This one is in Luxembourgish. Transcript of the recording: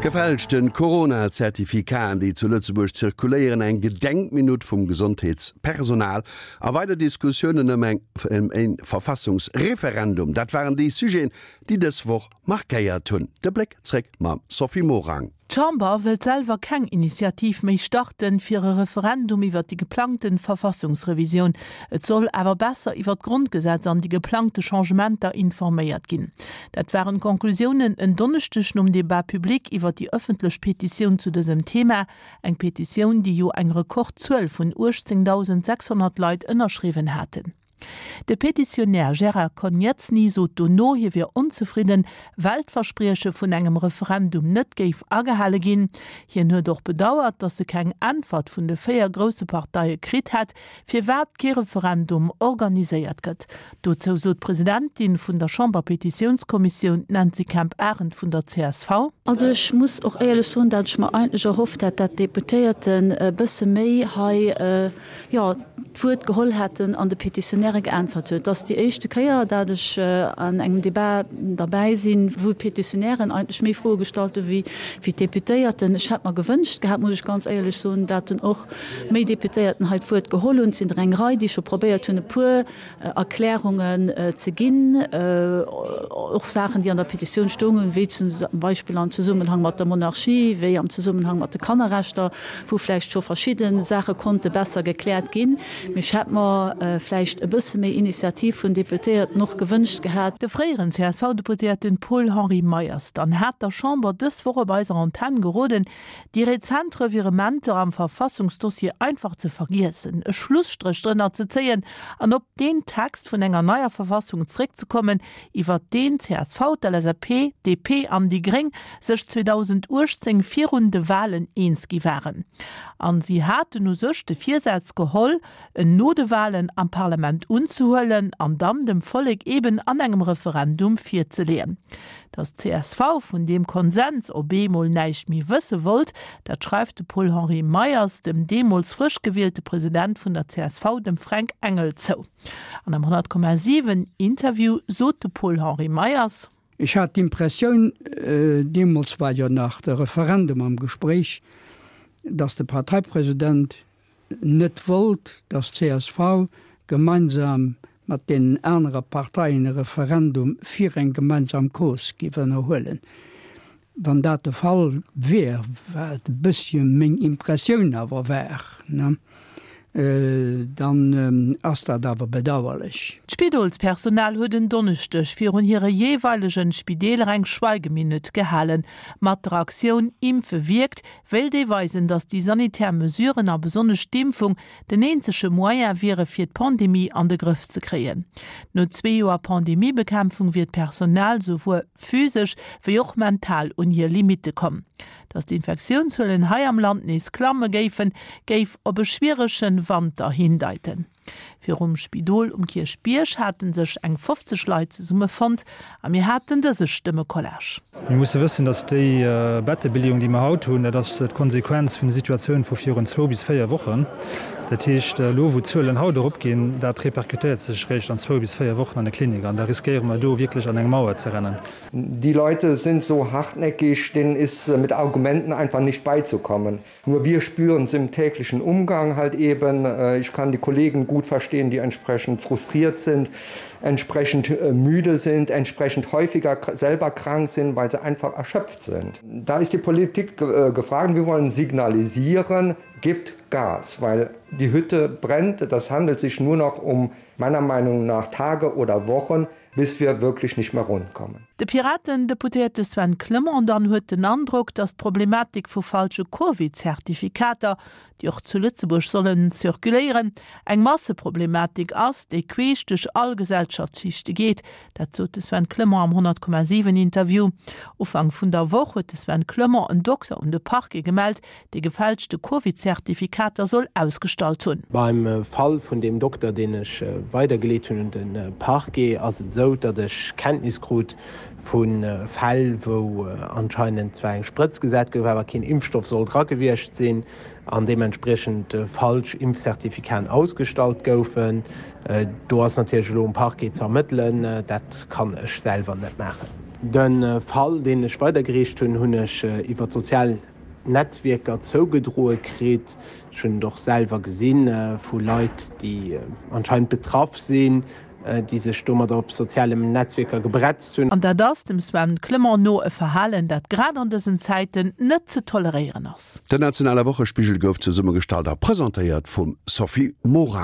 Gefälschte Corona-Zertifikaten, déi zu Lëtzebuerg zirkuléieren, eng Gedenkminutt vum Gesondheetspersonal a weider Diskussiounen ëm eng e Verfassungsreferendum, dat waren déi Sujeten, déi dës Woch markéiert hunn. De Bléck zréck mam Sophie Morang. D'Chamber wëllt selwer keng Initiativ méi starten, fir e Referendum iwwer déi geplangten Verfassungsrevisioun. Et soll awer besser iwwer d'Grondgesetz an déi geplangte Changementer informéiert ginn. Dat waren d'Conclusiounen en Donneschdeg nom Debat public iwwer déi ëffentlech Petitioun zu dësem Thema. Eng Petitioun, déi jo eng Rekordzuel vun 18.600 Leit ënnerschriwwen haten. De Petitionär Gérard Konietzny sot dono, hie wier onzefridden, well d'Versprieche vun engem Referendum net géif agehale ginn. Hien huet och bedauert, datt e keng Äntwert vun de 4 grousse Parteie kritt hätt, firwat kee Referendum organiséiert gëtt. Dozou sot d'Presidentin vun der Chamberpetitiounskommissioun, d'Nancy Kemp-Arendt vun der csv. Also ech muss och éierlech soen, dat ech mer eigentlech erhofft hat, dat d'Deputéierten e bësse méi hei, jo, d'Wuert geholl hätten an de Petitionäre geäntwert huet. Et ass déi éischte Kéier, dat ech an engem Debat derbäi sinn, wou d'Petitionären eigentlech méi Froe gestallt hu wéi d'Deputéierten. Ech hätt mer gewënscht gehat, muss ech ganz éierlech soen, dat en och méi Deputéierten hei d'Wuert geholl hunn. Et sinn der eng Rei, déi scho probéiert hunn, e puer Erklärungen ze ginn, och Saachen, déi an der Petitioun stoungen, wéi zum Beispill am Zesummenhang mat der Monarchie, wéi am Zesummenhang mat de Kannerrechter, wou vläicht scho verschidde Saache konnte besser gekläert ginn. Mee ech hätt mer vläicht e bësse méi Initiativ vun Deputéierten och gewënscht gehat. De fréieren CSV-Deputéierten Paul-Henri Meyers dann hat der Chamber dës Woch op eiser Antenn geroden, Déi rezent Revirementer am Verfassungsdossier einfach ze vergiessen, e Schlusstréch drënner ze zéien an op deen Text vun enger neier Verfassung zréckzekommen, iwwert deen csv, d'LSAP, DP an déi Gréng sech 2018 virun de Walen eens gi waren. An si haten u sech de Virsaz geholl, en no de Walen am Parlament unzehuelen an dann dem Vollek eben an engem Referendum virzeleeën. Datt csv vun deem Konsens op eemol näischt méi wësse wollt, dat schreift de Paul-Henri Meyers dem deemools frësch gewielte President vun der csv, dem Fränk Engel, zou. An am 100,7 Interview sot de Paul-Henri Meyers. Ech hat d'Impressioun, deemools war jo nach de Referendum am Gespréich, datt de Parteipresident net wollt, datt csv gemeinsam mat deenen anere Parteien e Referendum fir eng gemeinsam Cause géif ënnerhuelen. Wann dat de Fall wier, wat e bëssche meng Impressioun awer war, dann ass dat awer bedauerlech. D'Spidolspersonal huet en Donneschdeg virun hire jeeweilegen Spideeler eng Schweigeminutt gehalen. Mat der Aktioun Impfe wierkt wéilt ee weisen, datt déi sanitär Mesuren a besonnesch d'Impfung den eenzege Moyen wiere fir d'Pandemie an de Grëff ze kréien. No zwee Joer Pandemiebekämpfung wier d'Personal souwuer physesch wéi och mental un hir Limitte komm. Datt d'Infektiounszuelen hei am Land nees klamme géifen, géif op e schwierege Wanter hindeiten. Virum Spidol um Kierchbierg hate sech eng 50 Leit zesummefonnt a mir haten dëse Stëmmecollage. Mir musse wëssen, datt déi Bettebeleeung, déi mer haut hunn, dat ass d'Konsequenz vun der Situatioun vu virun zwou bis véier Wochen. Dat heescht, elo wou d'Zuelen haut eropginn, dat repercutéiert sech eréischt an zwou bis véier Wochen an de Klinik an da riskéiere mer do wierklech an eng Mauer ze rennen. Die Leute sind so hartnäckig, denen ist mit Argumenten einfach nicht beizukommen. Nur wir spüren es im täglichen Umgang halt eben. Ich kann die Kollegen gut verstehen, die entsprechend frustriert sind, entsprechend müde sind, entsprechend häufiger selber krank sind, weil sie einfach erschöpft sind. Da ist die Politik gefragt, wir wollen signalisieren, gibt Gas, weil die Hütte brennt. Das handelt sich nur noch um meiner Meinung nach Tage oder Wochen, bis wir wirklich nicht mehr rund kommen. De Piraten-Deputéierte Sven Clement dann huet den Androck, datt d'Problematik vu falsche Covid-Zertifikater, déi och zu Lëtzebuerg sollen zirkuléieren, eng Masseproblematik ass, déi queesch duerch all Gesellschaftsschichte geet. Dat sot de Sven Clement am 100,7 Interview. Ufank vun der Woch huet de Sven Clement en Dokter un de Parquet gemellt, dee gefälschte Covid-Zertifikater soll ausgestallt hunn. Beim Fall vun deem Dokter, deen ech weidergeleet hunn un de Parquet, ass et esou, datt ech Kenntnis krut vu Fäll, wou anscheinend zwar eng Sprëtz gesat gouf, awer keen Impfstoff soll dra gewiescht sinn an deementspriechend falsch Impfcertificaten ausgestallt goufen. Do ass natierlech elo um Parquet ze ermëttelen. Dat kann ech selwer net maachen. De Fall, deen ech weidergereecht hunn, hunn ech iwwer d'sozial Netzwierker zougedroe kritt. Ech hunn et och selwer gesi vu Leit, déi anscheinend betraff sinn, déi sech domadder op sozialem Netzwierker gebretzt hunn. An dat ass, dem Sven Clement no, e Verhalen, dat grad an dësen Zäiten net ze toleréieren ass. Den nationale Wochespigel gouf zesummegestallt a presentéiert vum Sophie Morang.